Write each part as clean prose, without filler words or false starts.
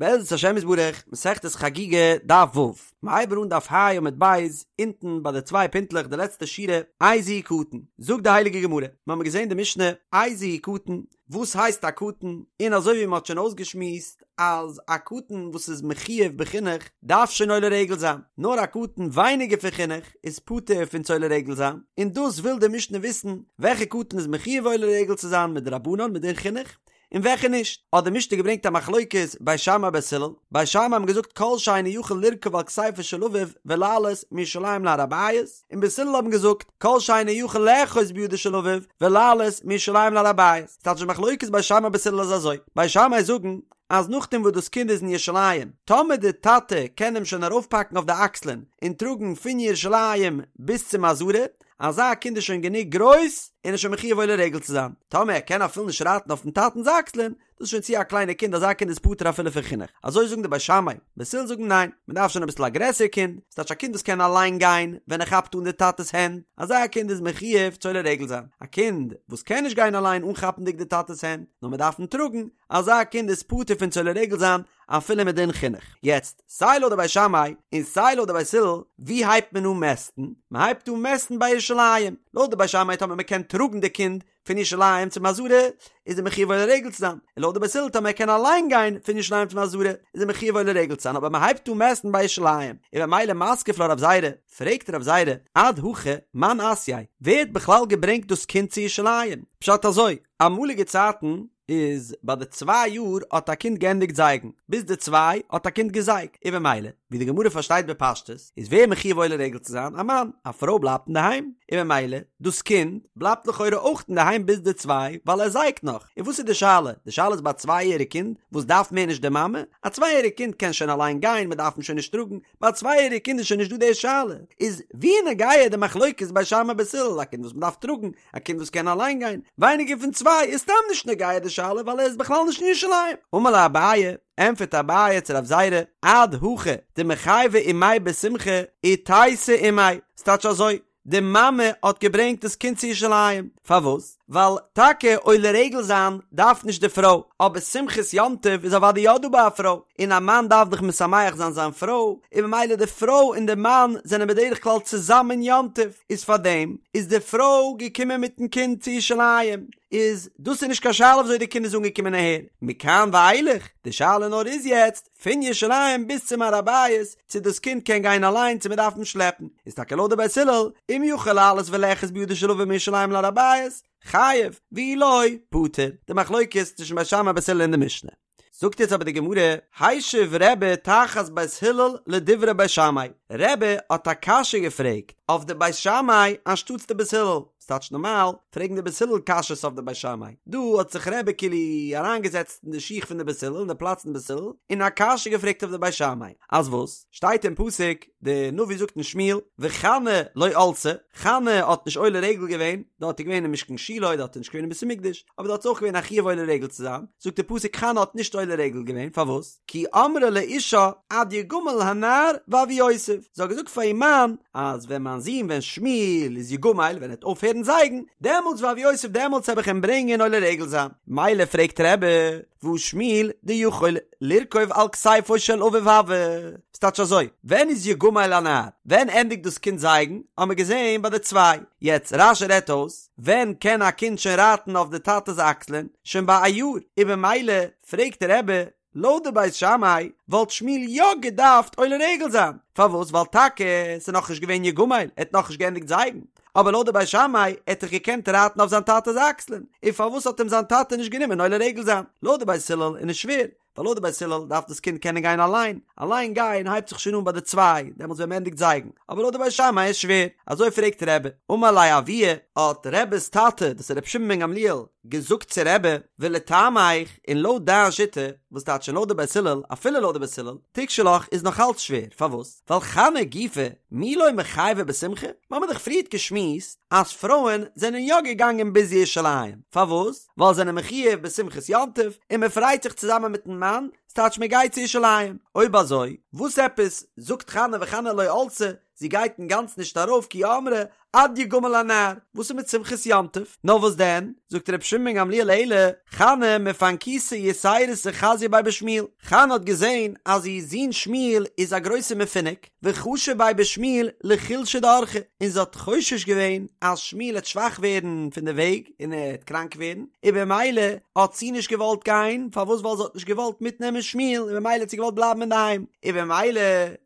בעזרת השם יתברך, מסכת חגיגה, דף ו', מ'הייבט אן דף ה' עמוד ב', אונטן ביי די צוויי פינטלעך די לעצטע שורה, איזהו קטן, זאגט די הייליגע גמרא, מ'האמיר געזען די משנה, איזהו קטן, וואס הייסט א קטן, און אזוי ווי מ'האט שוין אויסגעשמועסט אז א קטן וואס איז מחויב בחינוך דארף שוין עולה רגל זיין, נאר א קטן ווייניגער פון חינוך איז פטור פון צו עולה רגל זיין, און דאס וויל די משנה וויסן, וועלכע קטן איז מחויב עולה רגל צו זיין מדרבנן מדין חינוך, און וועלכע נישט, האט די משנה געברענגט א מחלוקת בית שמאי בית הלל, בית שמאי האבן געזאגט כל שאינו יכול לרכוב על כתפו של אביו ולעלות מירושלים להר הבית, און בית הלל האבן געזאגט כל שאינו יכול לאחוז בידו של אביו ולעלות מירושלים להר הבית, ס'טייטש די מחלוקת בית שמאי בית הלל איז אזוי, בית שמאי זאגן אז נאכדעם וואס דאס קינד איז אין ירושלים, טאמער די טאטע קען אים שוין ארויפפאקן אויף די אקסלען און טראגן פון ירושלים ביז צום עזרה, אזא קינד איז שוין גענוג גרויס און איז שוין מחויב עולה רגל צו זיין, טאמער ער קען אפילו נישט רייטן אויפן טאטנ'ס אקסלען, דאס איז שוין צו א קליינע קינד, אזא קינד איז פטור אפילו פון חינוך. אזוי זאגן די בית שמאי, בית הלל זאגן ניין, מען דארף שוין אביסל א גרעסער קינד, ס'טייטש א קינד וואס קען אליין גיין ווען ער כאפט אן די טאטע'ס הענט, אזא קינד איז מחויב צו עולה רגל זיין, א קינד וואס קען נישט גיין אליין אנכאפנדיג די טאטע'ס הענט, נאר מען דארף אים טראגן, אזא קינד איז פטור פון צו עולה רגל זיין אפילו מדין חינוך. יעצט, סיי לויט די בית שמאי און סיי לויט די בית הלל, ווי הייבט מען אן מעסטן? מען הייבט אן מעסטן ביי ירושלים. לויט די בית שמאי טאמער מען קען טראגן די קינד פון ירושלים צום עזרה, איז ער מחויב עולה רגל צו זיין. און לויט די בית הלל טאמער ער קען אליין גיין פון ירושלים צום עזרה, איז ער מחויב עולה רגל צו זיין. אבער מען הייבט אן מעסטן ביי ירושלים, און במילא מתקיף לה רב זירא, פרעגט רב זירא, עד הכא מאן אתייה, ווער האט בכלל געברענגט דאס קינד צו ירושלים? פשט אזוי, אמאליגע צייטן איז ביי די צוויי יאר האט א קינד געענדיגט זייגן, ביז די צוויי האט א קינד געזייגט, און במילא, ווי די גמרא פארשטייט בפשטות, איז ווער מחויב עולה רגל צו זיין? א מאן, א פרוי בלייבט אינדערהיים, און במילא, דאס קינד בלייבט לכאורה אויך אינדערהיים ביז די צוויי, ווייל ער זייגט נאך, און וואס איז די שאלה? די שאלה איז ביי א צוויי יעריג קינד וואס דארף מער נישט די מאמע, א צוויי יעריג קינד קען שוין אליין גיין, מען דארף אים שוין נישט טראגן, ביי א צוויי יעריג קינד איז שוין נישט דא די שאלה, איז ווי נוגע די מחלוקת בית שמאי בית הלל, א קינד וואס מען דארף טראגן, א קינד וואס קען אליין גיין, ווייניגער פון צוויי איז סתם נישט נוגע די שאלה ווייל ער איז בכלל נישט אין ירושלים. אמר ליה אביי, ענטפערט אביי צו רב זירא, עד הכא דמיחייבא אימיה בשמחה, איתיתא אימיה, ס'טייטש אזוי, די מאמע האט געברענגט דאס קינד צו ירושלים, פארוואס? ווייל טאקע עולה רגל זיין דארף נישט די פרוי, אבער שמחת יום טוב איז אוודאי יא דא ביי א פרוי, און א מאן דארף דאך משמח זיין זיין פרוי, און ממילא די פרוי און די מאן זענען בדרך כלל צוזאמען יום טוב, איז פארדעם איז די פרוי געקומען מיטן קינד צו ירושלים, איז דאס איז נישט קיין שאלה וויאזוי די קינד איז אנגעקומען אהער, מכאן ואילך, די שאלה נאר איז יעצט, פון ירושלים ביז צום הר הבית, צו דאס קינד קען גיין אליין צו מען דארף אים שלעפן, איז טאקע לויט די בית הלל, אם יכול לעלות ולאחוז בידו של אביו מירושלים להר הבית, חייב, ואי לא, פטור. די מחלוקת צווישן בית שמאי בית הלל אין די משנה. זאגט יעצט אבער די גמרא, השיב רבי תחת בית הלל לדברי בית שמאי, רבי האט א קשיא געפרעגט אויף די בית שמאי אנשטאטס די בית הלל, ס'טייטש נארמאל פרעגן די בית הלל קשיות אויף די בית שמאי, דא האט זיך רבי כאילו אריינגעזעצט אין די שיך פון די בית הלל אין די פלאץ פון בית הלל און א קשיא געפרעגט אויף די בית שמאי, אז וואס? שטייט אין פסוק, די נביא זאגט אין שמואל, וחנה לא עלתה, חנה האט נישט עולה רגל געווען, דארט איז געווען אין משכן שילה, דארט איז נישט געווען אין בית המקדש, אבער דארט איז אויך געווען א חיוב עולה רגל צו זיין, זאגט די פסוק חנה האט נישט עולה רגל געווען, פארוואס? כי אמרה לאישה עד יגמל הנער והביאותיו, זי האט געזאגט פאר איר מאן אז ווען מיין זון ווען שמואל איז יגמל ווען ער וועט אויפהערן זייגן, דעמאלטס והביאותיו דעמאלטס העב איך אים ברענגען עולה רגל זיין. מילא פרעגט רבי, והא שמואל דיכול לרכוב על כתפו של אביו הוה, ס'טייטש אזוי, ווען איז יגמל הנער? ווען ענדיגט דאס קינד זייגן? האמער געזען ביי די צוויי. יעצט רש"י רעדט אויס, ווען קען א קינד שוין רייטן אויף די טאטע'ס אקסלען? שוין ביי א יאר, און במילא פרעגט רבי, לויט די בית שמאי וואלט שמואל יא געדארפט עולה רגל זיין, פארוואס? ווייל טאקע ס'איז נאכנישט געווען יגמל, ער האט נאכנישט געענדיגט זייגן, אבער לויט די בית שמאי ער האט דאך געקענט רייטן אויף זיין טאטע'ס אקסלען, און פארוואס האט אים זיין טאטע נישט גענומען עולה רגל זיין? לויט די בית הלל איז נישט שווער, ווייל לויט די בית הלל דארף דאס קינד קענען גיין אליין, אליין גיין הייבט זיך שוין אן ביי די צוויי, דעמאלטס ווען מ'ענדיגט זייגן, אבער לויט די בית שמאי איז שווער, אזוי פרעגט רבי, אמר ליה אבוה, האט רבי'ס טאטע, דאס איז רבי שמעון בן גמליאל, געזאגט צו רבי, ולטעמיך, און לויט דיין שיטה, וואס טייטש לויט די בית הלל, אפילו לויט די בית הלל, תיקשי לך איז נאך אלץ שווער, פארוואס? ווייל חנה גופא, מי לא מיחייבא בשמחה? מ'האמיר דאך פריערט געשמועסט אז פרויען זענען יא געגאנגען ביז ירושלים, פארוואס? ווייל זענען מחויב בשמחת יום טוב, און מ'פרייט זיך צוזאמען מיטן מאן, ס'טייטש מ'גייט צו ירושלים. אויב אזוי, וואס עפעס זאגט חנה וחנה לא עלתה, זי גייט אינגאנצן נישט ארויף כי אמרה. עד יגמל הנער, וואס איז מיט שמחת יום טוב? נאר וואס דען, זאגט רבי שמעון בן גמליאל אלא חנה מפנקותא יתירתא חזיא ביה בשמואל, חנה האט געזען אז איר זון שמואל איז א גרויסער מפונק, וחשא ביה בשמואל לחולשא דאורחא, און זי האט חושש געווען אז שמואל העט שוואך ווערן פון די וועג און ער העט קראנק ווערן, און במילא האט זי נישט געוואלט גיין, פארוואס ווייל זי האט נישט געוואלט מיטנעמען שמואל און במילא האט זי געוואלט בלייבן אינדערהיים, און במילא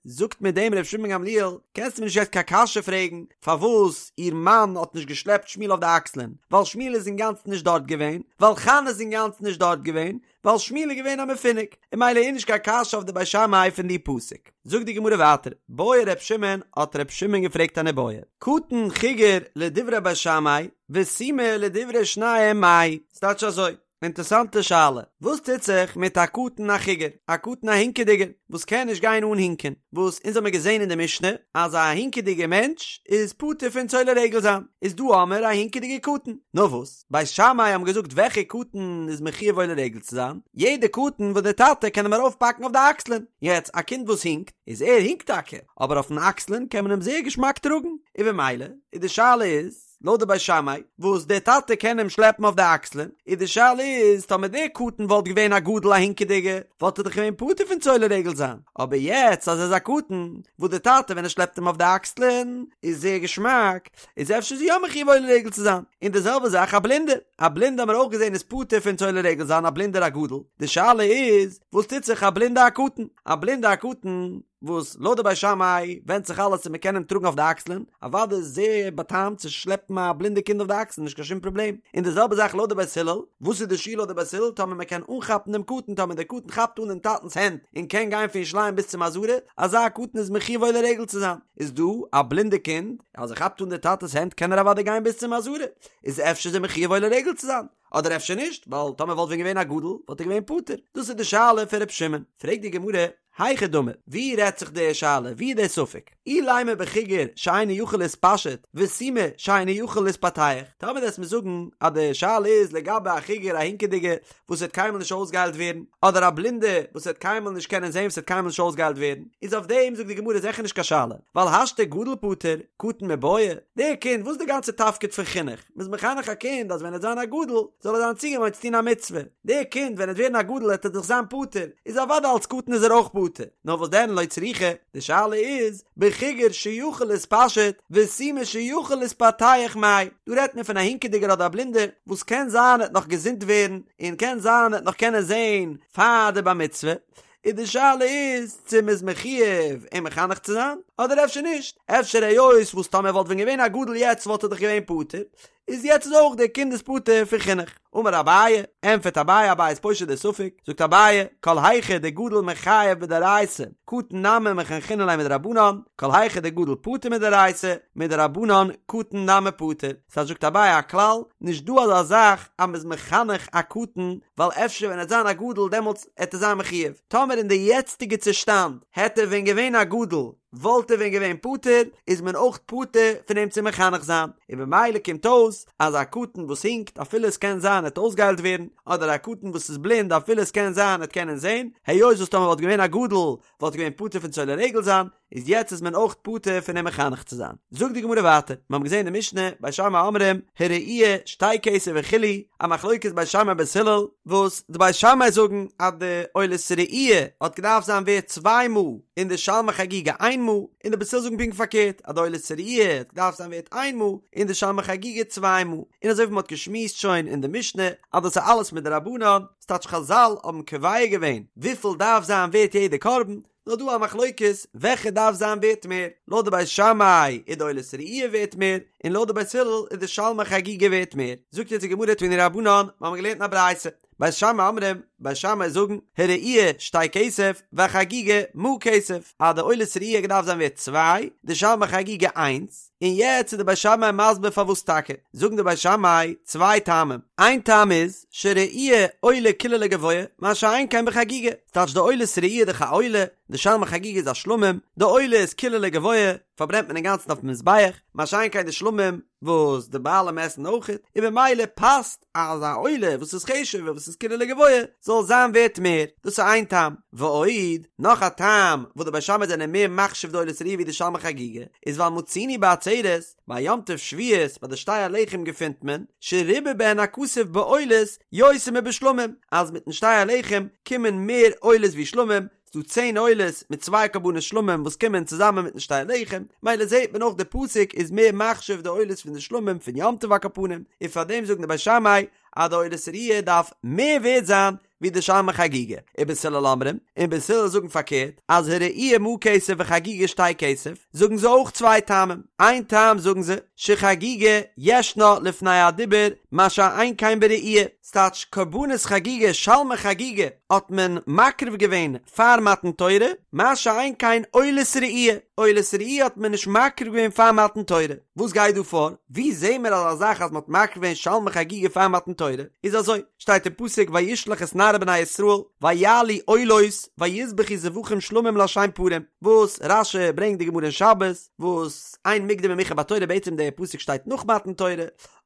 זאגט מיט דעם ר' שמעון בן גמליאל, קענסטו מיר נישט יעצט קיין קשיא פרעגן פארוואס איר מאן האט נישט געשלעפט שמואל אויף די אקסלען, ווייל שמואל איז אינגאנצן נישט דארט געווען, ווייל חנה איז אינגאנצן נישט דארט געווען, ווייל שמואל איז געווען א מפונק, און ממילא איז נישט קיין קשיא אויף די בית שמאי פון די פסוק. זאגט די גמרא ווייטער, בעי ר' שמעון, האט ר' שמעון געפרעגט אן איבעיא, קטן חיגר לדברי בית שמאי, וסומא לדברי שניהם מאי, ס'טייטש אזוי, אינטערסאנטע שאלה, וואס טוט זיך מיט א קטן א חיגר, א קטן א הינקעדיגער, וואס קען נישט גיין אן הינקען, וואס אונז האמיר געזען אין די משנה אז א הינקעדיגער מענטש איז פטור פון צו עולה רגל זיין, איז דא האמיר א הינקעדיגער קטן, נאר וואס? בית שמאי האבן געזאגט וועלכע קטן איז מחויב עולה רגל צו זיין, יעדע קטן וואס די טאטע קען אים ארויפפאקן אויף די אקסלען, יעצט א קינד וואס הינקט, איז ער הינקט טאקע, אבער אויפן אקסלען קען מען אים זייער געשמאק טראגן, און במילא איז די שאלה איז, לויט די בית שמאי, וואס די טאטע קען אים שלעפן אויף די אקסלען, איז די שאלה איז, טאמער דער קטן וואלט געווען א גדול א הינקעדיגע, וואלט ער דאך געווען פטור פון צו עולה רגל זיין, אבער יעצט אז ער איז א קטן, וואס די טאטע ווען ער שלעפט אים אויף די אקסלען, איז זייער געשמאק, איז אפשר איז יא מחויב עולה רגל צו זיין, און די זעלבע זאך א בלינדער, א בלינדע האבן מיר אויך געזען איז פטור פון צו עולה רגל זיין א בלינדער א גדול, די שאלה איז וואס טוט זיך א בלינדע א קטן, א בלינדע א קטן וואס לויט די בית שמאי ווענדט זיך אלעס צו מען קען אים טראגן אויף די אקסלען, אוודאי איז זייער באטעמט צו שלעפן א בלינדע קינד אויף די אקסלען נישט קיין שום פראבלעם, און די זעלבע זאך לויט די בית הלל, וואס איז די שיעור לויט די בית הלל טאמער מען קען אנכאפן דעם קטן טאמער דער קטן כאפט אן דעם טאטנס הענט און קען גיין פון ירושלים ביז צום עזרה, אזא קטן איז מחויב עולה רגל צו זיין. איז דא א בלינדע קינד אז ער כאפט אן די טאטעס הענט קען ער אוודאי גיין ביז צום עזרה, איז אפשר איז ער מחויב עולה רגל צו זיין, אדער אפשר נישט, ווייל טאמער וואלט ווען געווען א גדול וואלט ער געווען פטור, דאס איז די שאלה פון ר' שמעון, פרעגט די גמרא, היכי דמי, ווי רעדט זיך די שאלה, ווי איז די ספק, אילימא בחיגר שאינו יכול להתפשט, וסומא שאינו יכול להתפתח, טאמער וועסט מיר זאגן אז די שאלה איז לגבי א חיגר א הינקעדיגע וואס וועט קיינמאל נישט אויסגעהיילט ווערן, אדער א בלינדע וואס וועט קיינמאל נישט קענען זען וואס וועט קיינמאל נישט אויסגעהיילט ווערן, איז אויף דעם זאגט די גמרא זיכער נישט קיין שאלה, ווייל השתא גדול פטור, קטן מיבעיא, דער קינד, וואס איז די גאנצע תפקיד פון חינוך? מ'איז מחנך א קינד אז ווען ער וועט זיין א גדול זאל ער זיין צוגעוואוינט צו טון א מצוה, דער קינד ווען ער וועט ווערן א גדול וועט ער דאך זיין פטור, איז אוודאי אלס קטן איז ער אויך פטור, נאר וואס דען לא צריכא, די שאלה איז, בחיגר שיכול להתפשט, וסומא שיכול להתפתח מאי, דא רעדט מען פון א הינקעדיגער אדער א בלינדער, וואס קען זיין ער וועט נאך געזונט ווערן, און קען זיין ער וועט נאך קענען זען פאר די בר מצוה, און די שאלה איז צו מ'איז מחויב אים מחנך צו זיין, אדער אפשר נישט, אפשר היות וואס טאמער וואלט ווען געווען א גדול יעצט וואלט ער דאך געווען פטור, איז יעצט איז אויך דער קינד איז פטור פון חינוך. אמר אביי, ענטפערט אביי, אביי איז פושט די ספק, זאגט אביי, כל היכא דגדול מיחייב מדאורייתא, קטן נמי מחנכינן ליה מדרבנן, כל היכא דגדול פטור מדאורייתא, מדרבנן קטן נמי פטור. סא זאגט אביי א כלל, נישט דא אזא זאך אז מ'איז מחנך א קטן, ווייל אפשר ווען ער וועט זיין א גדול דעמאלטס העט ער זיין מחויב. טאמער אין די יעצטיגע צושטאנד העט ער ווען געווען א גדול, וואלט ער ווען געווען פטור, איז מען אויך פטור פון אים צו מחנך זיין, און במילא קומט אויס אז א קטן וואס הינקט אפילו עס קען זיין ער וועט אויסגעהיילט ווערן, אדער א קטן וואס איז בלינד אפילו עס קען זיין ער וועט קענען זען, היות וואס טאמער וואלט געווען א גדול וואלט ער געווען פטור פון צו עולה רגל זיין, איז יעצט איז מען אויך פטור פון אים מחנך צו זיין. זאגט די גמרא ווייטער, מיר האבן געזען אין די משנה, בית שמאי אומרים, הראי' שתי כסף וכו', א מחלוקת בית שמאי בית הלל, וואס די בית שמאי זאגן אז די עולת ראי' האט געדארפט זיין ווערט צוויי מעה און די שלמי חגיגה איין מעה, און די בית הלל זאגן פונקט פארקערט אז די עולת ראי' האט געדארפט זיין ווערט איין מעה און די שלמי חגיגה צוויי מעה, און אזוי ווי מען האט געשמועסט שוין אין די משנה אז דאס איז אלעס מדרבנן, ס'טייטש חזל האבן קובע געווען וויפיל דארף זיין ווערט יעדע קרבן, נאר דא א מחלוקת וועלכע דארף זיין ווערט מער, לויט די בית שמאי איז די עולת ראי' ווערט מער, און לויט די בית הלל איז די שלמי חגיגה ווערט מער, זאגט יעצט די גמרא תנו רבנן, מיר האבן געלערנט אין א ברייתא, בית שמאי אומרים, בית שמאי זאגן, הראי' שתי כסף, והחגיגה מעה כסף, אז די עולת ראי' געדארפט זיין ווערט צוויי, די שלמי חגיגה איינס, און יעצט איז די בית שמאי מסביר פארוואס טאקע, זאגן די בית שמאי צוויי טעמים, איין טעם איז, שראי' עולה כולה לגבוה, מה שאין כן בחגיגה, ס'טייטש די עולת ראי' איז דאך א עולה, די שלמי חגיגה איז א שלמים, די עולה איז כולה לגבוה, פארברענט מען אינגאנצן אויפן מזבח, מה שאין כן די שלמים. וואס די בעלים עסן אויכעט, און במילא פאסט אז א עולה וואס איז חשוב'ער וואס איז כולו לגבוה זאל זיין ווערט מער, דאס איז איין טעם, ועוד, נאך א טעם וואס די בית שמאי זענען מער מחשיב די עולת ראיה ווי די שלמי חגיגה, איז ווייל מצינו בעצרת, ביי יום טוב שבועות ביי די שתי הלחם געפינט מען, שריבה בהן הכתוב בעולות יותר מבשלמים, אז מיטן שתי הלחם קומען מער עולות ווי שלמים, ס'דא צען עולות מיט צוויי קרבנות שלמים וואס קומען צוזאמען מיטן שתי הלחם, מילא זעט מען אויך די פסוק איז מער מחשיב די עולות פון די שלמים פון יום טוב על כל פנים, און פאר דעם זאגן די בית שמאי אז די עולת ראיה דארף מער ווערט זיין ווי די שלמי חגיגה, ובית הלל אומרים, און בית הלל זאגן פארקערט, אז הראי' מעה כסף וחגיגה שתי כסף, זאגן זיי אויך צוויי טעמים, איין טעם זאגן זיי, שחגיגה ישנה לפני הדיבור מה שאין כן בראי', ס'טייטש קרבנות חגיגה שלמי חגיגה האט מען מקריב געווען פאר מתן תורה, מה שאין כן עולת ראי', עולת ראי' האט מען נישט מקריב געווען פאר מתן תורה, וואס גייט דא פאר? ווי זעהן מיר אזא זאך אז מ'האט מקריב געווען שלמי חגיגה פאר מתן תורה? איז אזוי, שטייט אין פסוק וישלח את נערי בני ישראל ויעלו עולות ויזבחו זבחים שלמים לה' פרים, וואס רש"י ברענגט די גמרא אין שבת, וואס אין מוקדם ומאוחר בתורה בעצם די פסוק שטייט נאך מתן תורה,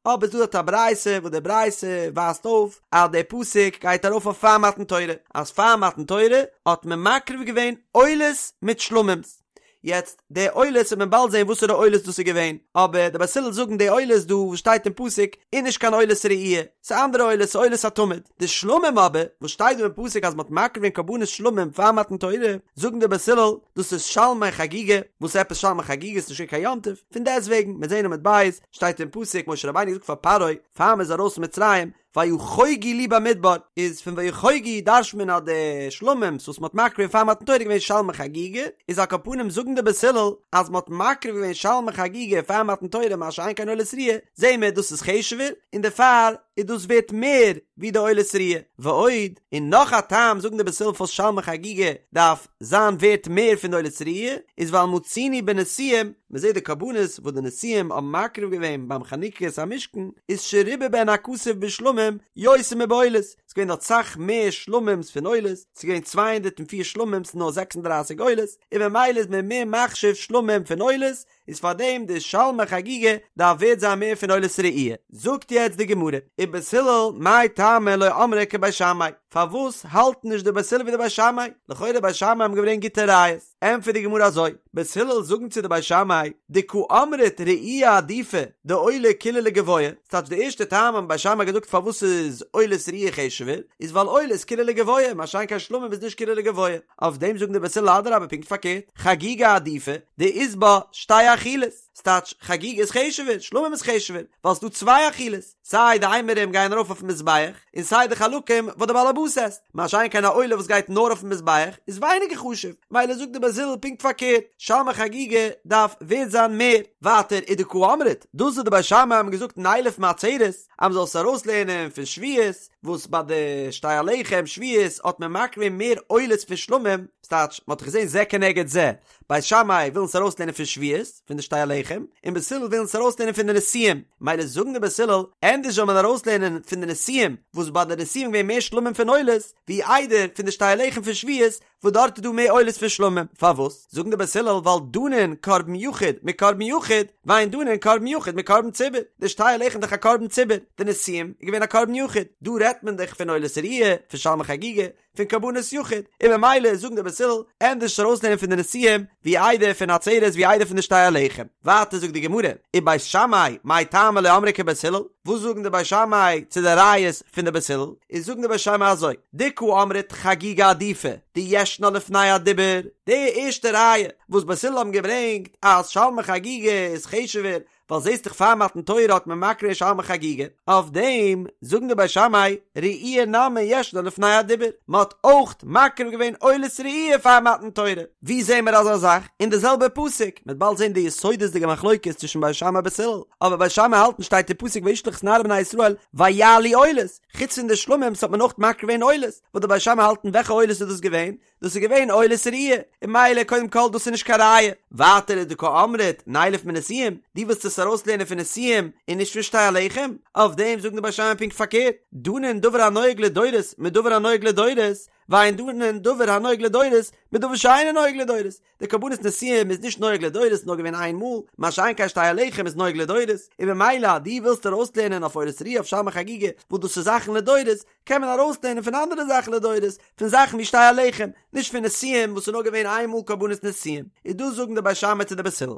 אבער ס'דא דארט א ברייתא וואס די ברייתא ווייזט אויף אז די פסוק גייט ארויף אויף פאר מתן תורה, אז פאר מתן תורה האט מען מקריב געווען עולות מיט שלמים'ס. יעצט די עולות וועט מען באלד זען וואסערע עולות דאס איז געווען, אבער די בית הלל זאגן די עולות דא וואס שטייט אין פסוק איז נישט קיין עולת ראי', ס'איז אנדערע עולות, ס'איז עולת התמיד. די שלמים אבער וואס שטייט דא אין פסוק אז מ'האט מקריב געווען קרבנות שלמים פאר מתן תורה, זאגן די בית הלל דאס איז שלמי חגיגה, וואס עפעס שלמי חגיגה ס'איז נישט געווען קיין יום טוב, פון דעסטוועגן מיר זעען עמוד ב' שטייט אין פסוק משה רבינו זאגט פאר פרעה פאר מ'איז ארויס פון מצרים ויחוגו לי במדבר איז פון ויחוגו דרש'ט מען אז די שלמים'ס וואס מ'האט מקריב געווען פאר מתן תורה איז געווען שלמי חגיגה איז על כל פנים זאגן די בית הלל אז מ'האט מקריב געווען שלמי חגיגה פאר מתן תורה מה שאין כן עולת ראיה זעהן מיר דאס איז חשוב'ער און דערפאר איז דאס ווערט מער ווי די עולת ראיה ועוד און נאך א טעם זאגן די בית הלל פארוואס שלמי חגיגה דארף זיין ווערט מער פון די עולת ראיה איז ווייל מצינו בנשיאים מען זעט די קרבנות וואס די נשיאים האבן מקריב געווען ביים חנוכת המשכן איז שריבה בהן הכתוב בשלמים יותר מבעולות, ס'איז געווען דארט סאך מער שלמים'ס פון עולות, ס'איז געווען 204 שלמים'ס נאר 36 עולות, און ממילא איז מען מער מחשיב שלמים פון עולות, איז פארדעם די שלמי חגיגה דארף ווערט זיין מער פון עולת ראי'. זאגט יעצט די גמרא, ובית הלל מאי טעמא לא אמרי כבית שמאי, פארוואס האלטן נישט די בית הלל ווי די בית שמאי? לכאורה בית שמאי האבן געברענגט גוטע ראיות. ענטפערט די גמרא אזוי, בית הלל זאגן צו די בית שמאי, דקא אמרת ראי' עדיפא דעולה כולה לגבוה, ס'טייטש די ערשטע טעם האבן בית שמאי געזאגט פארוואס איז עולת ראי' חשוב'ער, איז ווייל עולה איז כולה לגבוה, מה שאין כן שלמים איז נישט כולה לגבוה, אויף דעם זאגן די בית הלל אדרבה פונקט פארקערט, חגיגה עדיפא דאית בה שתי אכילות, ס'טייטש חגיגה איז חשוב'ער, שלמים איז חשוב'ער, ווייל ס'דא צוויי אכילות. סיי די אימורים גייען ארויף אויפן מזבח, און סיי די חלקים וואס די בעל הבית עסט, מה שאין כן א עולה וואס גייט נאר אויפן מזבח איז ווייניגער חשוב, מילא זאגט די בית הלל פונקט פארקערט, שלמי חגיגה דארף ווערט זיין מער. ווייטער ודקא אמרת, דאס וואס די בית שמאי האבן געזאגט נילף מעצרת, אז מען זאל עס ארויסלערנען פון שבועות, וואס ביי די שתי הלחם שבועות האט מען מקריב געווען מער עולות פון שלמים, ס'טייטש, מען האט דאך געזען זה כנגד זה, בית שמאי ווילן עס ארויסלערנען פון שבועות, פון די שתי הלחם, און בית הלל ווילן עס ארויסלערנען פון די נשיאים, מילא זאגן די בית הלל, ענדערש זאל מען ארויסלערנען פון די נשיאים, וואס ביי די נשיאים געווען מער שלמים פון עולות, ווי איידער פון די שתי הלחם פון שבועות, וואס דארט איז דא מער עולות פון שלמים, פארוואס? זאגן די בית הלל ווייל דנין קרבן יחיד מקרבן יחיד, ואין דנין קרבן יחיד מקרבן ציבור, די שתי הלחם איז דאך א קרבן ציבור, די נשיאים איז געווען א קרבן יחיד, דא רעדט מען דאך פון עולת ראיה, פון שלמי חגיגה, פון קרבנות יחיד, און ממילא זאגן די בית הלל, ענדערש ארויסלערנען פון די נשיאים, ווי איידער פון עצרת ווי איידער פון די שתי הלחם. ווייטער זאגט די גמרא, ובית שמאי, מאי טעמא לא אמרי כבית הלל, וואס זאגן די בית שמאי צו די ראיות פון די בית הלל, איז זאגן די בית שמאי אזוי, דקא אמרת חגיגה עדיפא, דישנה לפני הדיבור, די ערשטע ראיה וואס בית הלל האבן געברענגט אז שלמי חגיגה איז חשוב'ער ווייל זעסט דאך פאר מתן תורה האט מען מקריב געווען שלמי חגיגה, אויף דעם זאגן די בית שמאי ראי' נמי ישנה לפני הדיבור, מען האט אויך מקריב געווען עולת ראי' פאר מתן תורה, ווי זעהן מיר אזא זאך? אין די זעלבע פסוק, מען וועט באלד זעהן די יסודות'דיגע מחלוקת צווישן בית שמאי בית הלל, אבער בית שמאי האלטן שטייט אין פסוק וישלח את נערי בני ישראל ויעלו עולות, חוץ פון די שלמים'ס האט מען אויך מקריב געווען עולות, וואס די בית שמאי האלטן וועלכע עולות איז דאס געווען? דאס איז געווען עולת ראי', און מילא קודם כל דאס איז נישט קיין ראיה, ווייטער איז דקא אמרת נילף מנשיאים, דו ווילסט עס ארויסלערנען פון נשיאים און נישט פון שתי הלחם, אויף דעם זאגן די בית שמאי פונקט פארקערט, דנין דבר הנוהג לדורות מדבר הנוהג לדורות, ואין דנין דבר הנוהג לדורות בדבר שאינו נוהג לדורות, די קרבנות נשיאים איז נישט נוהג לדורות נאר געווען איין מאל, מה שאין כן שתי הלחם איז נוהג לדורות, און ממילא אז דו ווילסט ארויסלערנען אויף עולת ראיה אויף שלמי חגיגה וואס דאס איז זאכן לדורות, קען מען ארויסלערנען פון אנדערע זאכן לדורות, פון זאכן ווי שתי הלחם, נישט פון נשיאים וואס איז נאר געווען איין מאל קרבנות נשיאים, איז דאס זאגן די בית שמאי צו די בית הלל.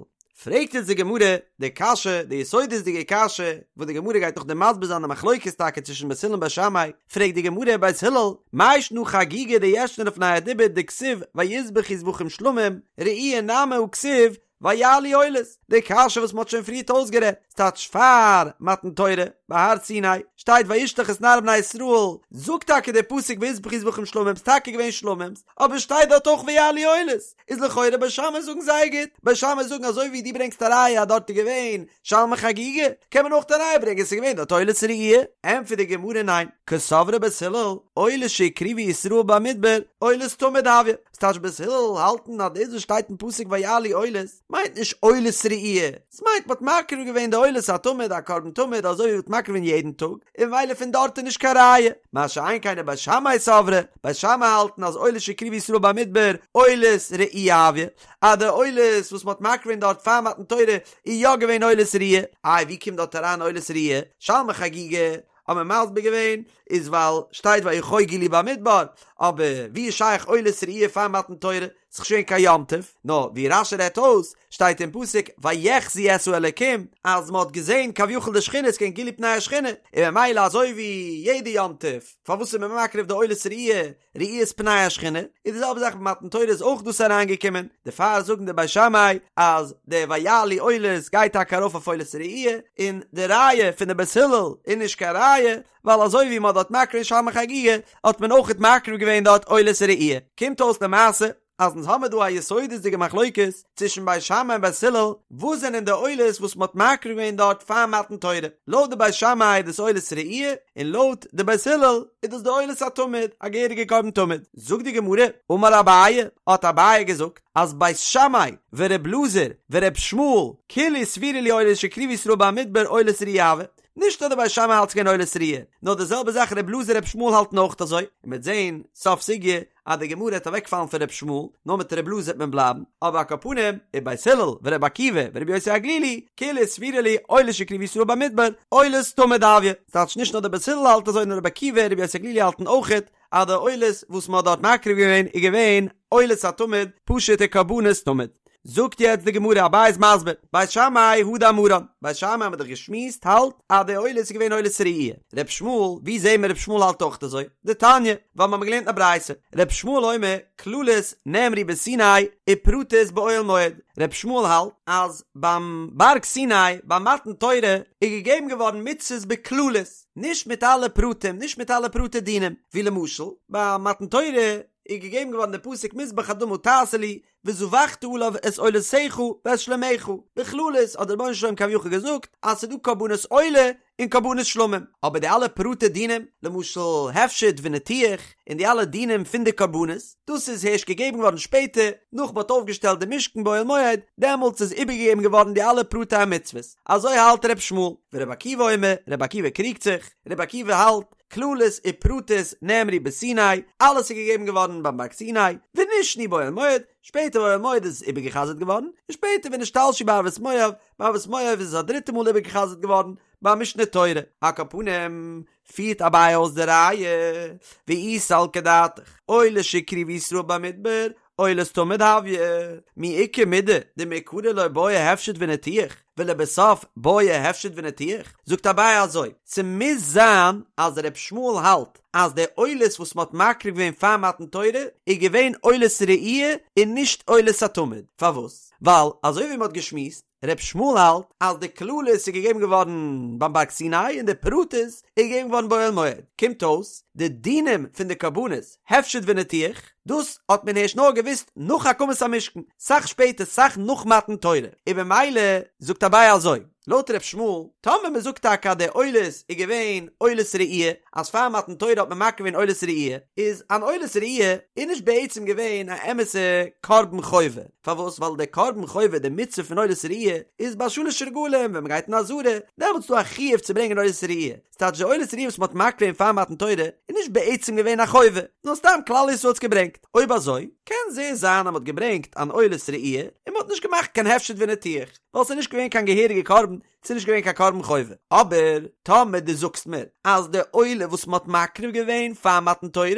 פרעגט יעצט די גמרא די קשיא, די יסודות'דיגע קשיא, וואס די גמרא גייט נאכדעם מסביר זיין די מחלוקת טאקע צווישן בית הלל און בית שמאי, פרעגט די גמרא בית הלל, מאי שנא חגיגה דישנה לפני הדיבור דכתיב ויזבחו זבחים שלמים, ראי' נמי הא כתיב ויעלו עולות, די קשיא וואס מ'האט שוין פריערט אויסגערעדט, ס'טייטש פאר מתן תורה, ביי הר סיני, שטייט וישלח את נערי בני ישראל, זאגט טאקע דער פסוק ויזבחו זבחים שלמים, ס'טאקע געווען שלמים'ס, אבער שטייט דארט אויך ויעלו עולות, איז לכאורה בית שמאי זאגן זייער גוט, בית שמאי זאגן אזוי ווי דו ברענגסט א ראיה אז דארט איז געווען שלמי חגיגה, קען מען אויך א ראיה ברענגען ס'איז געווען דארט עולת ראי'. ענטפערט די גמרא ניין, קסברי בית הלל, עולות שהקריבו ישראל במדבר, עולת תמיד הויא, ס'טייטש בית הלל האלטן אז דאס וואס שטייט אין פסוק ויעלו עולות מיינט נישט עולת ראי', ס'מיינט מ'האט מקריב געווען די עולת התמיד א קרבן תמיד אזוי ווי מ'האט מקריב געווען יעדן טאג, און ממילא פון דארט איז נישט קיין ראיה. מה שאין כן בית שמאי סברי, בית שמאי האלטן אז עולות שהקריבו ישראל במדבר עולת ראי' הויא, אז די עולות וואס מ'האט מקריב געווען דארט פאר מתן תורה איז יא געווען עולת ראי', איי ווי קומט דארט אריין עולת ראי'? שלמי חגיגה האט מען מסביר געווען איז ווייל שטייט ויחוגו לי במדבר, אבער ווי איז שייך עולת ראי' פאר מתן תורה? ס'איז נישט געווען קיין יום טוב, נאר ווי רש"י רעדט אויס, שטייט אין פסוק ויחזו את האלקים, אז מ'האט געזען כביכול די שכינה, ס'געווען גילוי פני השכינה, און ממילא אזוי ווי יעדע יום טוב, פארוואס איז מען מקריב די עולת ראי', ראיית פני השכינה, איז די זעלבע זאך ביי מתן תורה איז אויך דאס אריינגעקומען, דערפאר זאגן די בית שמאי אז די ויעלו עולות גייט טאקע ארויף אויף עולת ראי', און די ראיה פון די בית הלל איז נישט קיין ראיה, ווייל אזוי ווי מען האט דארט מקריב געווען שלמי חגיגה האט מען אויכעט מקריב געווען דארט עולת ראי', קומט אויס למעשה אז אונז האמיר דא א יסודות'דיגע מחלוקת צווישן בית שמאי און בית הלל, וואס זענען די עולות וואס מען האט מקריב געווען דארט פאר מתן תורה, לויט די בית שמאי איז דאס עולת ראי' און לויט די בית הלל איז דאס די עולת התמיד, א געהעריגע קרבן תמיד. זאגט די גמרא, אמר אביי, האט אביי געזאגט, אז בית שמאי ור' אלעזר ור' ישמעאל כולהו סבירא להו עולות שהקריבו ישראל במדבר עולת ראי' הוו, נישט נאר די בית שמאי האלט ס'געווען עולת ראי', נאר די זעלבע זאך ר' אלעזר ר' ישמעאל האלטן אויך אזוי, און מ'וועט זעהן סוף סוגיא אז די גמרא העט אוועקפאלן פון ר' ישמעאל, נאר מיט ר' אלעזר העט מען בלייבן, אבער על כל פנים, ובית הלל ור' עקיבא ור' יוסי הגלילי, כולהו סבירא להו עולות שהקריבו ישראל במדבר, עולת תמיד הויא. ס'טייטש נישט נאר די בית הלל האלט אזוי נאר ר' עקיבא און ר' יוסי הגלילי האלטן אויכעט אז די עולות וואס מ'האט דארט מקריב געווען איז געווען עולת התמיד, פשוט'ע קרבנות תמיד. זאגט יעצט די גמרא, אביי איז מסביר, בית שמאי הא דאמרן, בית שמאי האבן מיר דאך געשמועסט האלט אז די עולות איז געווען עולת ראי', ר' ישמעאל, ווי זעהן מיר ר' ישמעאל האלט אויך אזוי? דתניא, ווייל מיר האבן געלערנט א ברייתא, ר' ישמעאל אומר, כללות נאמרו בסיני ופרטות באוהל מועד, ר' ישמעאל האלט אז ביים בארג סיני ביי מתן תורה איז געגעבן געווארן מצוות בכללות, נישט מיט אלע פרטים, נישט מיט אלע פרטי דינים, ווי למשל ביי מתן תורה איז געגעבן געווארן די פסוק מזבח אדמה תעשה לי, וזבחת עליו את עולותיך ואת שלמיך, בכללות האט דער רבונו של עולם כביכול געזאגט אז ס'איז דא קרבנות עולה און קרבנות שלמים, אבער די אלע פרטי דינים, למשל הפשט וניתוח, און די אלע דינים פון די קרבנות, דאס איז הערשט געגעבן געווארן שפעטער, נאך מ'האט אויפגעשטעלט די משכן באוהל מועד, דעמאלטס איז איבערגעגעבן געווארן די אלע פרטי המצוות, אזוי האלט ר' ישמעאל, ור' עקיבא אומר, ר' עקיבא קריגט זיך, ר' עקיבא האלט, כללות ופרטות נאמרו בסיני, אלעס איז געגעבן געווארן ביים בארג סיני, ונשנו באוהל מועד, שפעטער באוהל מועד איז עס איבערגעחזרט געווארן, און שפעטער ונשתלשו בערבות מואב, בערבות מואב איז עס א דריטע מאל איבערגעחזרט געווארן, ביי משנה תורה. על כל פנים, פירט אביי אויס די ראיה, ואי סלקא דעתך, עולות שהקריבו ישראל במדבר, עולת תמיד הויא, מי איכא מידי דמעיקרא לא בעי הפשט וניתוח, ולבסוף בעי הפשט וניתוח? זאגט אביי אזוי, ס'מוז זיין אז ר' ישמעאל האלט אז די עולות וואס מ'האט מקריב געווען פאר מתן תורה איז געווען עולת ראי' און נישט עולת התמיד, פארוואס? ווייל אזוי ווי מ'האט געשמועסט, ר' ישמעאל האלט אז די כללות איז געגעבן געווארן ביים בארג סיני און די פרטות איז געגעבן געווארן באוהל מועד, קומט אויס די דינים פון די קרבנות, הפשט וניתוח. דאס האט מען ערשט נאר געוואוסט נאך הקמת המשכן, סאך שפעטער סאך נאך מתן תורה, און במילא זאגט אביי אזוי, לויט ר' ישמעאל, טאמער מען זאגט טאקע אז די עולות איז געווען עולת ראי', אז פאר מתן תורה האט מען מקריב געווען עולת ראי', איז אן עולת ראי' איז נישט בעצם געווען א אמת'ע קרבן חובה, פארוואס? ווייל די קרבן חובה, די מצוה פון עולת ראי', איז ביי שלש רגלים ווען מען גייט אין עזרה, דעמאלטס איז דא א חיוב צו ברענגען עולת ראי', ס'טייטש די עולת ראי' וואס מ'האט מקריב געווען פאר מתן תורה איז נישט בעצם געווען א חובה, נאר סתם כלל ישראל האט עס געברענגט. אויב אזוי, קען זעהר זיין אז מ'האט געברענגט אן עולת ראי' און מ'האט נישט געמאכט קיין הפשט וניתוח, ווייל ס'איז נישט געווען קיין געהעריגע קרבן, ס'איז נישט געווען קיין קרבן חובה. אבער טאמער דו זאגסט מיר אז די עולה וואס מ'האט מקריב געווען פאר מתן תורה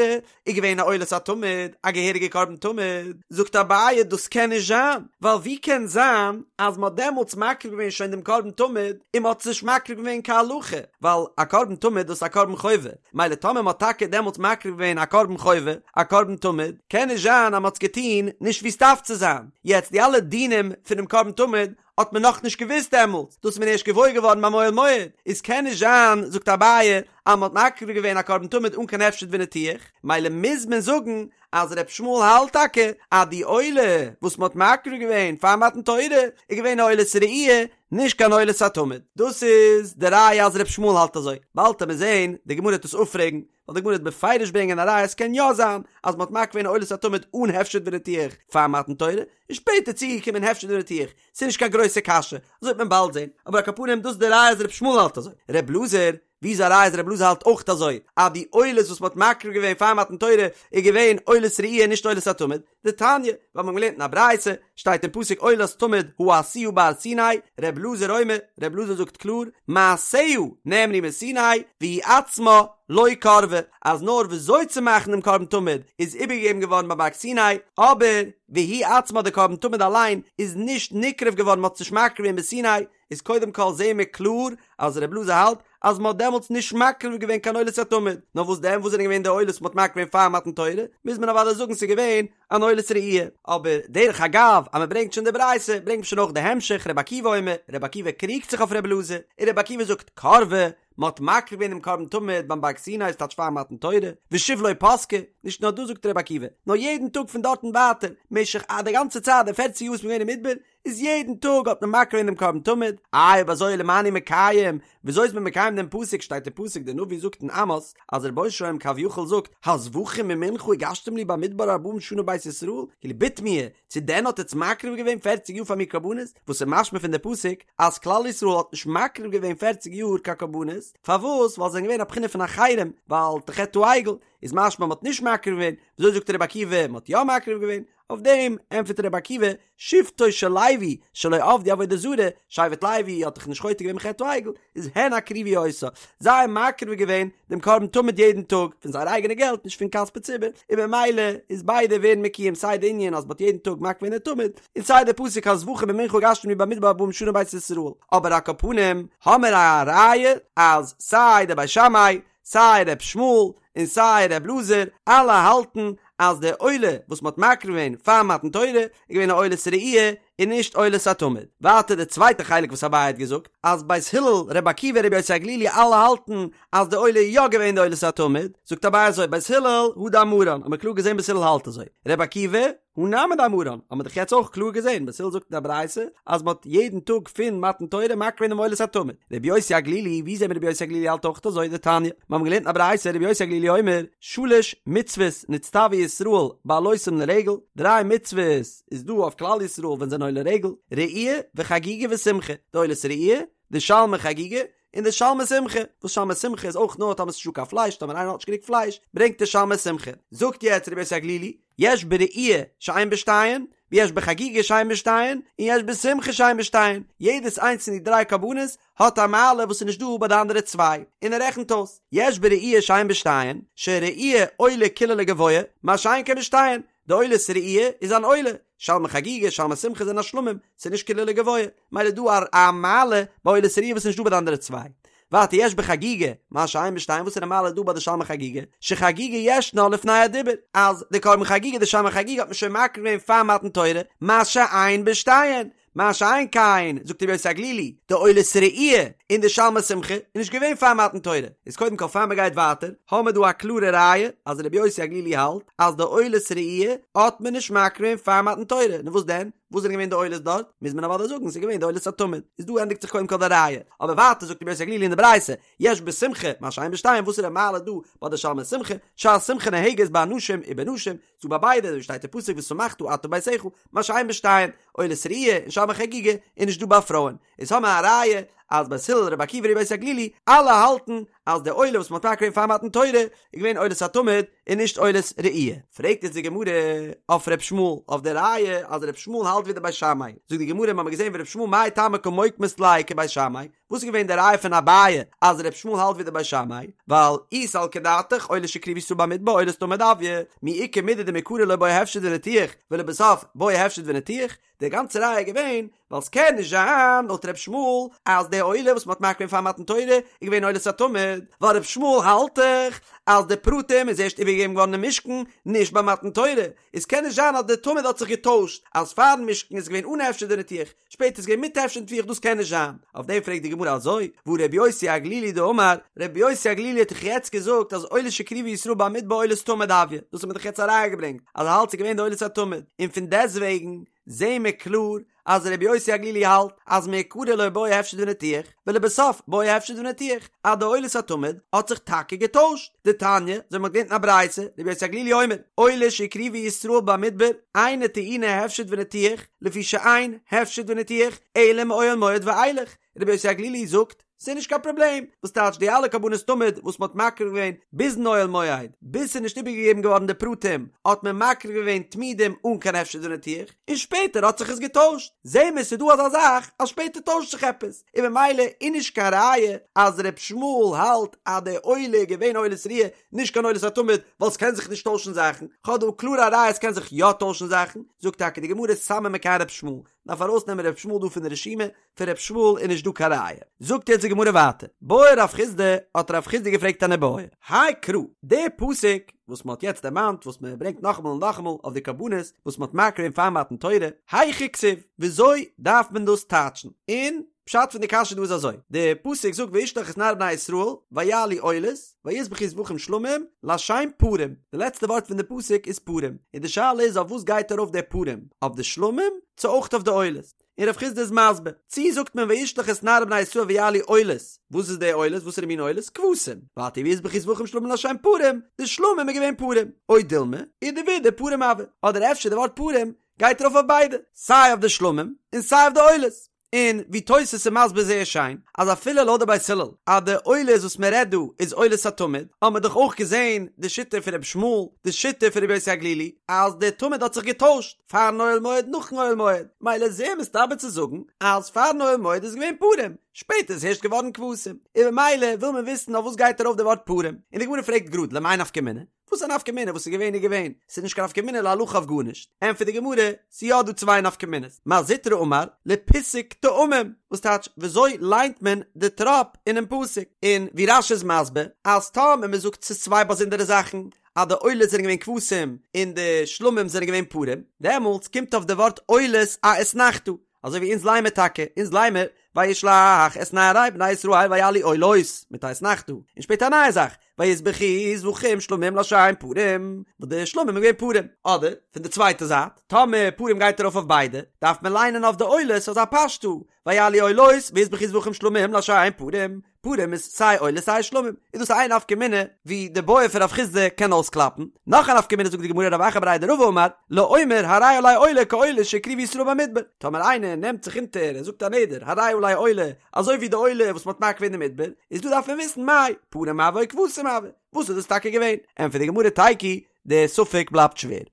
איז געווען א עולת התמיד, א געהעריגע קרבן תמיד, זאגט אביי דאס קען נישט זיין, ווייל ווי קען זיין אז מ'האט דעמאלטס מקריב געווען שוין דעם קרבן תמיד און מ'האט עס נישט מקריב געווען כהלכה, ווייל א קרבן תמיד דאס איז א קרבן חובה, מילא טאמער מ'האט טאקע דעמאלטס מקריב געווען א קרבן חובה, א קרבן תמיד, קען נישט זיין אז מ'האט עס געטון נישט ווי ס'דארף צו זיין, יעצט די אלע דינים פונעם קרבן תמיד האט מען נאכנישט געוואוסט דעמאלטס, דאס איז מען ערשט געוואויר געווארן ביים אוהל מועד, איז קען נישט זיין, זאגט אביי, אז מען האט מקריב געווען א קרבן תמיד אן קיין הפשט וניתוח, מילא מוז מען זאגן אז ר' ישמעאל האלט טאקע אז די עולה וואס מען האט מקריב געווען פאר מתן תורה איז געווען א עולת ראי' נישט קיין עולת התמיד, דאס איז די ראיה אז ר' ישמעאל האלט אזוי, באלד וועט מען זען די גמרא וועט עס אפפרעגן, ווייל די גמרא וועט בפירוש ברענגען א ראיה עס קען יא זיין אז מען האט מקריב געווען עולת התמיד אן הפשט וניתוח פאר מתן תורה, און שפעטער צוגעקומען הפשט וניתוח, ס'איז נישט קיין גרויסע קשיא, אזוי וועט מען באלד זען, אבער על כל פנים דאס איז די ראיה אז ר' ישמעאל האלט אזוי, ר' אלעזר, ווי איז א ראיה אז ר' אלעזר האלט אויך אזוי, אז די עולות וואס מ'האט מקריב געווען פאר מתן תורה איז געווען עולת ראי' נישט עולת התמיד, דתניא, ווייל מ'האט געלערנט אין א ברייתא, שטייט אין פסוק עולת תמיד העשויה בהר סיני, ר' אלעזר אומר, ר' אלעזר זאגט קלאר, מעשיה נאמרו מסיני, והיא עצמה לא קרבה, אז נאר וויאזוי צו מאכן דעם קרבן תמיד איז איבערגעגעבן געווארן ביים בארג סיני, אבער והיא עצמה די קרבן תמיד אליין איז נישט נקרב געווארן מ'האט עס נישט מקריב געווען בסיני, איז קודם כל זעהן מיר קלאר אז ר' אלעזר האלט אז מ'האט דעמאלטס נישט מקריב געווען קיין עולת התמיד, נאר וואס דען וואס זענען געווען די עולות מ'האט מקריב געווען פאר מתן תורה, מוז מען אוודאי זאגן ס'איז געווען אן עולת ראי'. אבער דרך אגב אז מ'ברענגט שוין די ברייתא ברענגט מען שוין אויך די המשך ר' עקיבא אומר, ר' עקיבא קריגט זיך אויף ר' אלעזר, און ר' עקיבא זאגט קרבה, מ'האט מקריב געווען דעם קרבן תמיד ביים בארג סיני ס'טייטש פאר מתן תורה, ושוב לא פסקה, נישט נאר דאס זאגט ר' עקיבא, נאר יעדן טאג פון דארטן ווייטער, משך א די גאנצע צייט די פערציג יאר וואס מ'איז געווען אין מדבר, איז יעדן טאג האט מען מקריב געווען דעם קרבן תמיד, איי אויב אזוי למאי אני מקיים, וויאזוי איז מען מקיים דעם פסוק, שטייט אין פסוק דער נביא זאגט אין עמוס, אז דער רבונו של עולם כביכול זאגט, הזבחים ומנחה הגשתם לי במדבר ארבעים שנה בית ישראל, כאילו בתמיה, צו דען האט עטץ מקריב געווען פערציג יאר פאר מיר קרבנות, וואס איז משמע פון די פסוק אז כלל ישראל האט נישט מקריב געווען פערציג יאר קיין קרבנות, פארוואס? ווייל זיי זענען געווען א בחינה פון אחרים, ווייל חטא העגל, איז משמע מ'האט נישט מקריב געווען, וויאזוי זאגט רבי עקיבא מ'האט יא מקריב געווען? אויף דעם ענטפערט רבי עקיבא, שבטו של לוי שלא עבדו עבודה זרה, שבט לוי האט דאך נישט חוטא געווען בחטא העגל, איז הן הקריבו אותה, זיי האבן מקריב געווען דעם קרבן תמיד יעדן טאג, פון זייער אייגענע געלט נישט פון כספי ציבור, און במילא איז ביידע ווערן מקוים סיי די ענין אז מ'האט יעדן טאג מקריב געווען די תמיד, און סיי די פסוק הזבחים ומנחה הגשתם לי במדבר ארבעים שנה בית ישראל, אבער על כל פנים האמיר א ראיה אז סיי די בית שמאי סיי ר' ישמעאל און סיי ר' אלעזר אלע האלטן אז די עולה וואס מ'האט מקריב געווען פאר מתן תורה איז געווען א עולת ראי' און נישט עולת התמיד. ווייטער די צווייטע חלק וואס אביי האט געזאגט אז בית הלל, רבי עקיבא, רבי יוסי הגלילי אלע האלטן אז די עולה איז יא געווען די עולת התמיד, זאגט אביי אזוי בית הלל הא דאמרן האט מען קלאר געזען בית הלל האלט אזוי, רבי עקיבא הא נמי דאמרן האט מען דאך יעצט אויך קלאר געזען, בית הלל זאגט אין א ברייתא אז מען האט יעדן טאג פון מתן תורה מקריב געווען דעם עולת התמיד. רבי יוסי הגלילי, ווי זעהן מיר רבי יוסי הגלילי האלט אויך אזוי? דתניא, מיר האבן געלערנט אין א ברייתא רבי יוסי הגלילי אומר, שלש מצוות נצטוו ישראל בעלותם לרגל, דריי מצוות איז דא אויף כלל ישראל ווען זיי זענען עולה רגל, ראי' וחגיגה ושמחה, די עולת ראי', די שלמי חגיגה, און די שלמי שמחה, וואס שלמי שמחה איז אויך נאר טאמער ס'איז נישטא קיין פלייש, טאמער איינער האט נישט גענוג פלייש, ברענגט ער שלמי שמחה. זאגט יעצט רבי יוסי הגלילי, יש בראי' שאין בשתיין, ויש בחגיגה שאין בשתיין, און יש בשמחה שאין בשתיין, יעדעס איינס פון די דריי קרבנות האט א מעלה וואס איז נישט דא ביי די אנדערע צוויי, און ער רעכנט אויס, יש בראי' שאין בשתיין, שראי' עולה כולה לגבוה, מה שאין כן בשתיין, די עולת ראי' איז אן עולה, שלמי חגיגה, שלמי שמחה זענען א שלמים, ס'איז נישט כולה לגבוה, מילא דא א מעלה ביי עולת ראי' וואס איז נישט דא ביי די אנדערע צוויי. ווייטער יש בחגיגה, מה שאין בשתיין, וואס איז די מעלה דא ביי די שלמי חגיגה? שחגיגה ישנה לפני הדיבור, אז די קרבן חגיגה, די שלמי חגיגה האט מען שוין מקריב געווען פאר מתן תורה, מה שאין בשתיין, מה שאין כן, זאגט רבי יוסי הגלילי, די עולת ראי' און די שלמי שמחה איז נישט געווען פאר מתן תורה, איז קודם כל פאר מ'גייט ווייטער, האמער דא א קלארע ראיה אז רבי יוסי הגלילי האלט אז די עולת ראי' האט מען נישט מקריב געווען פאר מתן תורה, נו וואס דען? וואס זענען געווען די עולות דארט? מוז מען אוודאי זאגן ס'איז געווען די עולת התמיד. איז דא ענדיגט זיך קודם כל די ראיה. אבער ווייטער זאגט רבי יוסי הגלילי אין די ברייתא, יש בשמחה מה שאין בשתיהן, וואס איז די מעלה דא ביי די שלמי שמחה? שהשמחה נוהגת באנשים ובנשים, ס'דא ביי ביידע, אזוי שטייט אין פסוק ושמחת אתה וביתך, מה שאין בשתיהן, עולת ראי' און שלמי חגיגה איז נישט דא ביי פרויען. איז האמער א ראיה אז בית הלל רבי עקיבא רבי יוסי הגלילי אלע האלטן אז די עולה וואס מ'האט מקריב געווען פאר מתן תורה איז געווען עולת התמיד און נישט עולת ראי'. פרעגט יעצט די גמרא אויף ר' ישמעאל אויף די ראיה אז ר' ישמעאל האלט ווי די בית שמאי, זאגט די גמרא מ'האמיר געזען ור' ישמעאל מאי טעמא קא מוקמת ליה כבית שמאי, וואס איז געווען די ראיה פון אביי אז ר' ישמעאל האלט ווי די בית שמאי, ווייל אי סלקא דעתך עולה שהקריבו ישראל במדבר עולת תמיד הויא, מי איכא מידי דמעיקרא לא בעי הפשט וניתוח ולבסוף בעי הפשט וניתוח, די גאנצע ראיה איז געווען ווייל ס'קען נישט זיין לויט ר' ישמעאל אז די עולה וואס מ'האט מקריב געווען פאר מתן תורה איז געווען עולת התמיד, ווייל ר' ישמעאל האלט דאך אז די פרטים איז ערשט איבערגעגעבן געווארן אין משכן נישט ביי מתן תורה, איז קען נישט זיין אז די תמיד האט זיך געטוישט אז פארן משכן איז געווען אן הפשט וניתוח שפעטער איז געווען מיט הפשט וניתוח דאס קען נישט זיין, אויף דעם פרעגט די גמרא אזוי, והא ר' יוסי הגלילי דאמר, ר' יוסי הגלילי האט דאך יעצט געזאגט אז עולה שהקריבו ישראל במדבר עולת תמיד הויא, דאס האט מען דאך יעצט א ראיה געברענגט אז ער האלט ס'איז געווען די עולת התמיד, און פון דעסטוועגן זעהן מיר קלאר אז רבי יוסי הגלילי האלט אז מעיקרא לא בעי הפשט וניתוח, ולבסוף בעי הפשט וניתוח, אז די עולת התמיד האט זיך טאקע געטוישט, דתניא, אזוי מ'האט געלערנט אין א ברייתא, רבי יוסי הגלילי אומר, עולה שהקריבו ישראל במדבר, אינה טעונה הפשט וניתוח, לפי שאין הפשט וניתוח, אלא מאוהל מועד ואילך, רבי יוסי הגלילי זאגט, ס'איז נישט קיין פראבלעם, וואס טייטש די אלע קרבנות תמיד וואס מ'האט מקריב געווען ביזן אוהל מועד, ביז ס'איז נישט איבערגעגעבן געווארן די פרטים, האט מען מקריב געווען תמידים אן קיין הפשט וניתוח, און שפעטער האט זיך עס געטוישט. זעהן מיר ס'איז דא אזא זאך אז שפעטער טוישט זיך עפעס, און ממילא איז נישט קיין ראיה אז ר' ישמעאל האלט אז די עולה איז געווען עולת ראיה נישט קיין עולת התמיד, ווייל ס'קען זיך נישט טוישן זאכן, כ'האב דא קלאר א ראיה ס'קען זיך יא טוישן זאכן, זאגט טאקע די גמרא סמא מכאן ר' ישמעאל, דארף ארויסנעמען ר' ישמעאל דא פון די רשימה, פון ר' ישמעאל איז נישט דא קיין ראיה. זאגט יעצט די גמרא ווייטער, בעי רב חסדא, האט רב חסדא געפרעגט אן איבעיא, האי קרא, די פסוק וואס מען האט יעצט דערמאנט וואס מען ברענגט נאכאמאל און נאכאמאל אויף די קרבנות וואס מען האט מקריב געווען פאר מתן תורה, היכא כתיב, וויאזוי דארף מען דאס טייטשן? און פשט פון די קשיא דא איז אזוי, די פסוק זאגט וישלח את נערי בני ישראל ויעלו עולות ויזבחו זבחים שלמים לשם פרים, די לעצטע ווארט פון די פסוק איז פרים, און די שאלה איז אויף וואס גייט ארויף די פרים, אויף די שלמים צו אויך אויף די עולות? און רב חסדא איז מסביר, צי זאגט מען וישלח את נערי בני ישראל ויעלו עולות, וואס איז די עולות, וואסערע מין עולות? כבשים, ווייטער ויזבחו זבחים שלמים לשם פרים, די שלמים איז געווען פרים, או דילמא, אידי ואידי פרים הוו, אדער אפשר די ווארט פרים גייט ארויף אויף ביידע, סיי אויף די שלמים און סיי אויף די עולות, און ווי תוס' איז מסביר זייער שיין, אז אפילו לויט די בית הלל אז די עולות וואס מען רעדט דא איז עולת התמיד, האט מען דאך אויך געזען די שיטה פון רבי ישמעאל, די שיטה פון רבי יוסי הגלילי, אז די תמיד האט זיך געטוישט. פארן אוהל מועד נאכן אוהל מועד, מילא איז זייער מסתבר צו זאגן אז פארן אוהל מועד איז געווען פרים, שפעטער איז הערשט געווארן כבשים, און ממילא וויל מען וויסן אויף וואס גייט ארויף די ווארט פרים, און די גמרא פרעגט גראד למאי נפקא מינה? וואס איז א נפקא מינה וואס איז געווען איז געווען, ס'איז נישט קיין נפקא מינה להלכה אויף גארנישט, ענטפערט די גמרא, ס'איז יא דא צוויי נפקא מינות, מר זוטרא אמר לפיסוק טעמים, וואס טייטש וויאזוי ליינט מען די טראפ אינעם פסוק, און ווי רש"י איז מסביר אז טאמער מ'זאגט ס'איז צוויי באזונדערע זאכן, אז די עולות זענען געווען כבשים און די שלמים זענען געווען פרים, דעמאלטס קומט אויף די ווארט עולות א אתנחתא, אזוי ווי אונז ליינמער טאקע, אונז ליינמער וישלח את נערי בני ישראל ויעלו עולות מיט א אתנחתא, און שפעטער א נייע זאך ויזבחו זבחים שלמים לשם פרים, וואס די שלמים איז געווען פרים, אדער פון די צווייטע זייט, טאמער פרים גייט ארויף אויף ביידע, דארף מען ליינען אויף די עולות אזא פשטא, ויעלו עולות ויזבחו זבחים שלמים לשם פרים, פרים איז סיי עולות סיי שלמים, איז דאס איין נפקא מינה ווי די בעיא פון רב חסדא קען אויסקלאפן, נאך א נפקא מינה זאגט די גמרא רב אחא בריה דרבא אמר, לאומר הרי עלי עולה כעולה שהקריבו ישראל במדבר, טאמער איינער נעמט זיך אונטער און זאגט א נדר הרי עלי עולה אזוי ווי די עולה וואס מ'האט מקריב געווען אין מדבר, איז דא דארף מען וויסן מאי פרים הוו או כבשים הוו, וואס איז דאס טאקע געווען? ענטפערט די גמרא תיקו, די ספק בלייבט שווער.